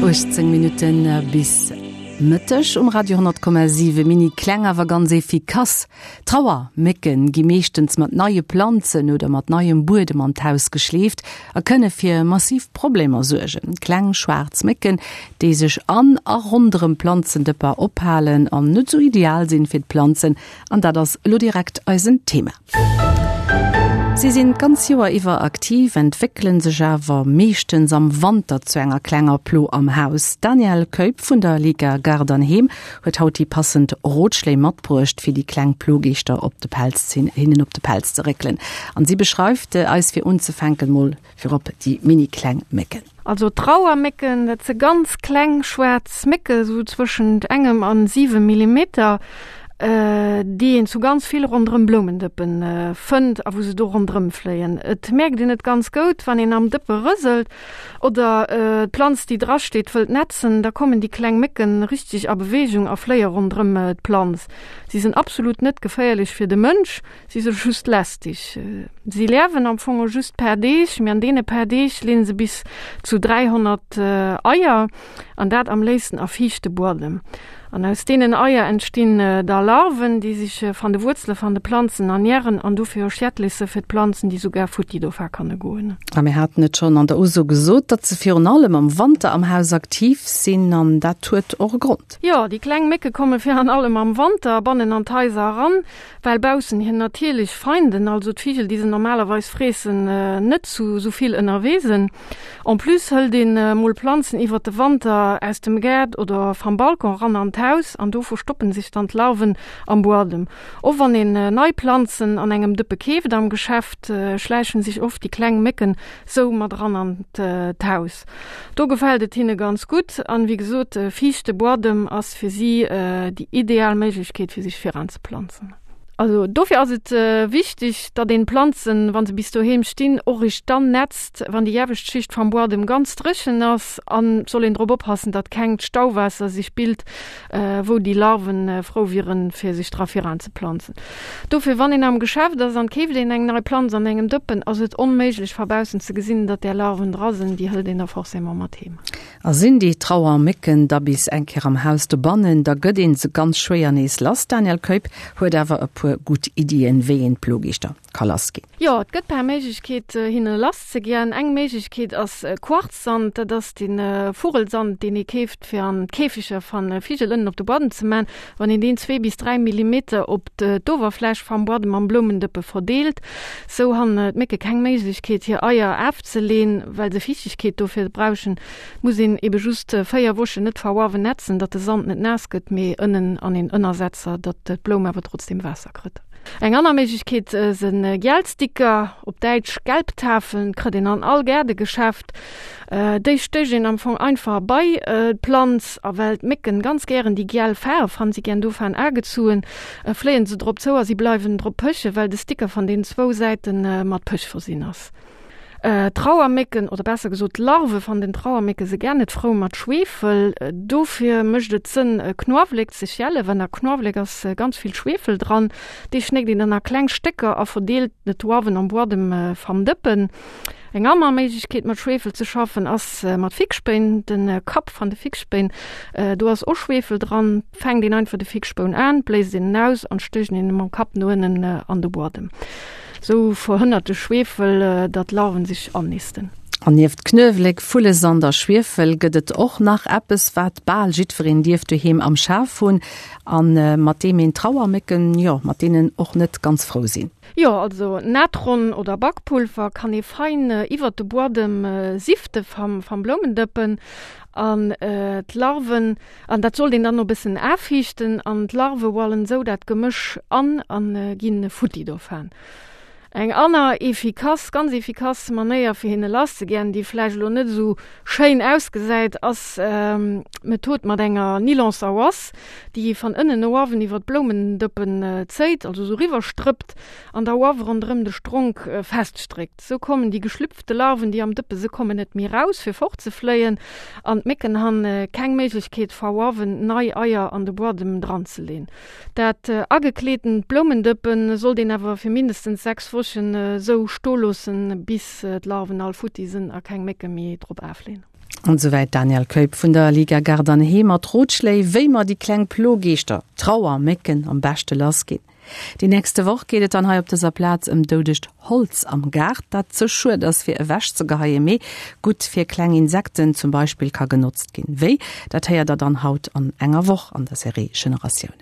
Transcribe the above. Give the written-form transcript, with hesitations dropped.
18 Minutten bis Mëtteg um Radio 10,7. Mini kleng awer ganz efficace Trauermécken gi meeschtens mat neie Planzen oder mat neiem Buedem an d'Haus geschleeft a kënne fir massiv Problemer suergen. Kleng schwaarz Mécken, déi sech an a ronderëm Planzendëpper ophalen an net sou ideal sinn fir d'Planzen, An dat ass elo direkt eisen Thema. Si sinn d'ganz Joer iwwer aktiv, entwéckelen sech awer meeschtens am Wanter zu enger klenger Plo am Haus. D'Danièle Keup vun der Liga Gaart an Heem huet haut déi passend Rotschléi matbruecht, fir déi kleng Plogeeschter op de Pelz hinnen op de Pelz ze réckelen. An si beschreift eis fir unzefänken mol Virop déi mini kleng Mécken. Also Trauermécken, dat se ganz kleng schwaarz Mécke sou zwëschent engem an 7 Millimeter, déi een zu ganz vill ronderëm Bloumendëppen fënnt a wou se do ronderëm fléien. Et mierkt een et ganz goud, wann een am Dëppe rëselt oder d'Planz déi dra steet wëllt netzen, da kommen déi kleng Mécken richteg a Beweegung a fléie ronderëm d'Planz. Si sinn absolut net geféierlech fir de Mënsch. Si se just lästig. Si liewen am Fong just per Deeg, mee an deene per Deeg leen se bis zu 300 Eier, an dat am léifsten a fiichte Buadem. An aus deenen Eier entstinn da Larven, déi sech van de Wuerzele van de Planzen ernähren an dofir och schädlech se fir d'Planzen, déi sougar futti dofa kanne goen. A mir haten et schonn an der Uso gesot, datt se virun allem am Wanter am Haus aktiv sinn, an dat huet och e Grond. Jo, déi kleng Mécke komme virun allem am Wanter bannen an d'Haiser eran, Well baussen hir natierlech Feinden, also d'Vigel déi se normalerweis freessen, net zu sou vill ënnerwee sinn. En plus hëlt een mol Planzen iwwert de Wanter aus dem Gaart oder vam Balcon ran an d'Haus an do verstoppen sech dann d'Larven am Buadem. Och wann een nei Planzen an engem Dëppe keeft am Geschäft, schläichen sech oft déi kleng Mécken sou mat eran an d'Haus. Do gefält et hinne ganz gutt an wéi gesot, fiichte Buadem ass fir si déi ideal Méiglechkeet fir sech viranzeplanzen. Also dofir ass et wichteg, datt een d'Planzen, wa se bis doheem stinn, och eréischt dann netzt, wann déi iewescht Schicht vam Buadem ganz dréchen ass. An et soll een drop oppassen, datt kengt Stauwaasser sech bilt, wou déi Larven frou wieren, fir sech dra viranzeplanzen. Dofir, wann een am Geschäft ass an keeft een eng nei Planz an engem Dëppen, ass et onméiglech va baussen ze gesinn, datt där Larven dra sinn. Déi hëlt een da forcément mat heem. A sinn déi Trauermécken da bis eng Kéier am Haus dobannen, da gëtt een se ganz schwéier nees lass. D'Danièle Keup huet awer e puer gutt Iddien, wéi een d'Plogeeschter ka lass ginn. Jo, et gëtt per Méiglechkeet hinne lass ze ginn. Eng Méiglechkeet ass Quarzsand, dat ass de Vugelsand, deen ee keeft fir an d'Käfeger van Vigel ënnen op de Buadem ze man. Wann een deen zwee bis 3 Millimeter op d'Owerfläch vam Buadem am Bloumendëppe verdeelt, sou han d'Mécke keng Méiglechkeet hir Eier aafzeleen, well se Fiichtegkeet dofir brauchen. Muss een ebe just 4 Wochen net verwawen netzen, datt de Sand net naass gëtt, mee ënnen an een Ënnersetzer, datt d'Bloum awer trotzdem Waasser krëtt. Eng anner Méiglechkeet sen Gielsticker, op Däitsch Gelbtafeln, krëtt een an all Gaardegeschäft. Déi stécht een am Fong einfach bei d'Planz, a well d'Mécken ganz gären déi giel Faarf han, si gären dovaan agezuen, fléien se drop zou a si bleiwen drop pëchen, well de Sticker van den zwou Säiten mat Pëch versinn ass. D'Trauermécken, oder besser gesot d'Larve van den Trauermécke se gär net frou mat Schwefel. Dofir mécht et Sënn Knuawléck ze schälen, well a Knuawléck ass ganz vill Schwefel dran. Dee schnéckt een dann a kleng Stécker a verdeelt et uawen am Buadem vam Dëppen. Eng aner Méiglechkeet mat Schwefel ze schaffen ass mat Fixspéin. De Kapp van de Fixspéin, do ass och Schwefel dran. Fänkt een einfach de Fixspoun aan, bléist een en aus an stécht een en mam Kapp no ënnen an de Buadem. Sou verhënnert de Schwiefel, datt d'Larven sech annisten. An nieft Knuewelek, Vullesand a Schwiefel gëtt et och nach eppes, wat bal jiddwereen dierft doheem am Schaf hunn a mat deem een Trauermécken, jo, mat deenen och net ganz frou sinn. Jo, also Natron oder Bakpulver kann ee fein iwwert de Buadem sifte vam Bloumendëppen an d'Larven An dat sollt een dann no bëssen aaffiichten an d'Larve wallen sou dat Gemësch an an ginn futti dovaan. Eng anner efficace, ganz efficace Manéier fir hinne lass ze gän, déi vläicht elo net esou schéin ausgesäit, ass d'Method mat enger Nylonsawass, déi ee van ënnen no uawen iwwer d'Bloumendëppen zéit, also sou riwwer strëppt an da uawe ronderëm de Stronk feststréckt. Sou kommen déi geschlüpfte Larven, déi am Dëppe se kommen net méi raus fir fortzefléien an d'Mécken han keng Méiglechkeet verwawen nei Eier an de Buadem dranzeleen. Dat agekleetent Bloumendëppen sollt een awer fir mindestens 6 Wochen sou sto loossen bis d'Larven all futti sen a keng Mécke méi drop aafleen. An esouwäit d'Danièle Keup vun der Liga Gaart an Heem mat Rotschléi, wéi mer déi kleng Plogeeschter, Trauermécken, am beschte lass ginn. Déi nächste Woch geet et dann hei op dëser Plaz ëm doudegt Holz am Gaart, dat ze schued ass fir ewech ze geheien, mee gutt fir kleng Insekten zum Beispill ka genotzt ginn. Wéi, dat héiert der dann haut an enger Woch an der Serie Generatiounen.